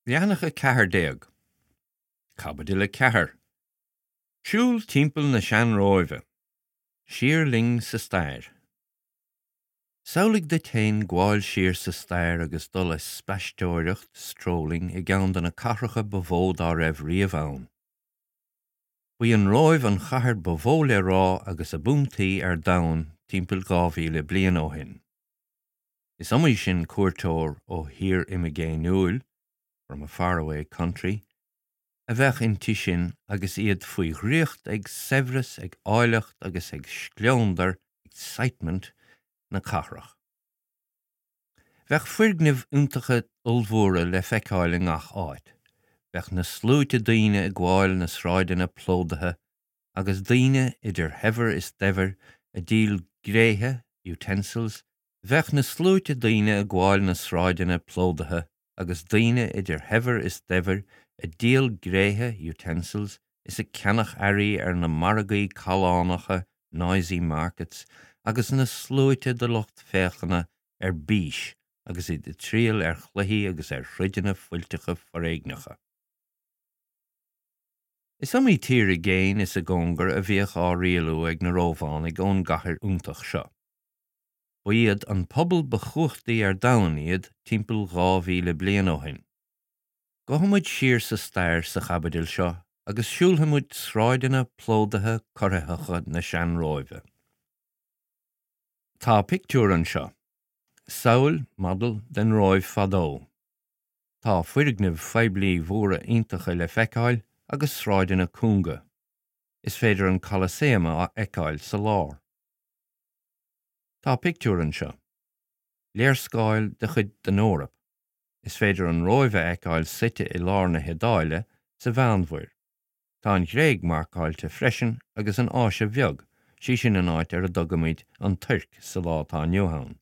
Leathanach 14, Caibidil 4, Siúl timpeall na Sean-Róimhe, Siar linn sa stair. Samhlaigh duit féin gabháil siar sa stair agus dul ag spaisteoireacht, strolling, i gceann de na cathracha ba mhó dá raibh riamh ann. Ba í an Róimh an chathair ba mhó le rá agus ab iontaí ar domhan timpeall 2,000 bliain ó shin. Is iomaí sin cuairteoir ó thír imigéiniúil, from a faraway country, a bheadh inti sin agus iad faoi dhraíocht ag saibhreas, ag áilleacht agus ag scleondar, excitement, na cathrach. Bheadh foirgnimh iontacha ollmhóra le feiceáil i ngach áit. Bheadh na sluaite daoine ag gabháil na sráideanna plódaithe agus daoine, idir shaibhir is daibhir, ag díol gréithe, utensils, Bheadh na sluaite daoine ag gabháil na sráideanna plódaithe agus daoine idir shaibhir is daibhir ag díol gréithe, utensils, is ag ceannach earraí ar na margaí callánacha, noisy markets, agus na sluaite de lucht féachana ar bís agus iad ag triall ar chluichí agus ar throideanna fuilteacha foréigneacha. Is iomaí tír i gcéin is i gcóngar a bhíodh á rialú ag na Rómhánaigh ón gcathair iontach seo. Ba iad an pobal ba chumhachtaí ar domhan iad timpeall 2,000 bliain ó shin. Gabhfaidh muid siar sa stair sa chaibidil seo agus siúlfaidh muid sráideanna plódaithe corraitheacha na Sean-Róimhe. Tá pictiúr anseo. Samhail, model, den Róimh fadó. Tá foirgnimh phoiblí mhóra iontacha le feiceáil agus sráideanna cúnga. Is féidir an Colosseum a fheiceáil sa lár. Tá pictiúr anseo. Léarscáil de chuid den Eoraip. Is féidir an Róimh a fheiceáil suite i lár na hIodáile, sa Mheánmhuir. Tá an Ghréig marcáilte freisin agus an Áise Bheag, sí sin an áit ar a dtugaimid an Tuirc sa lá atá inniu ann.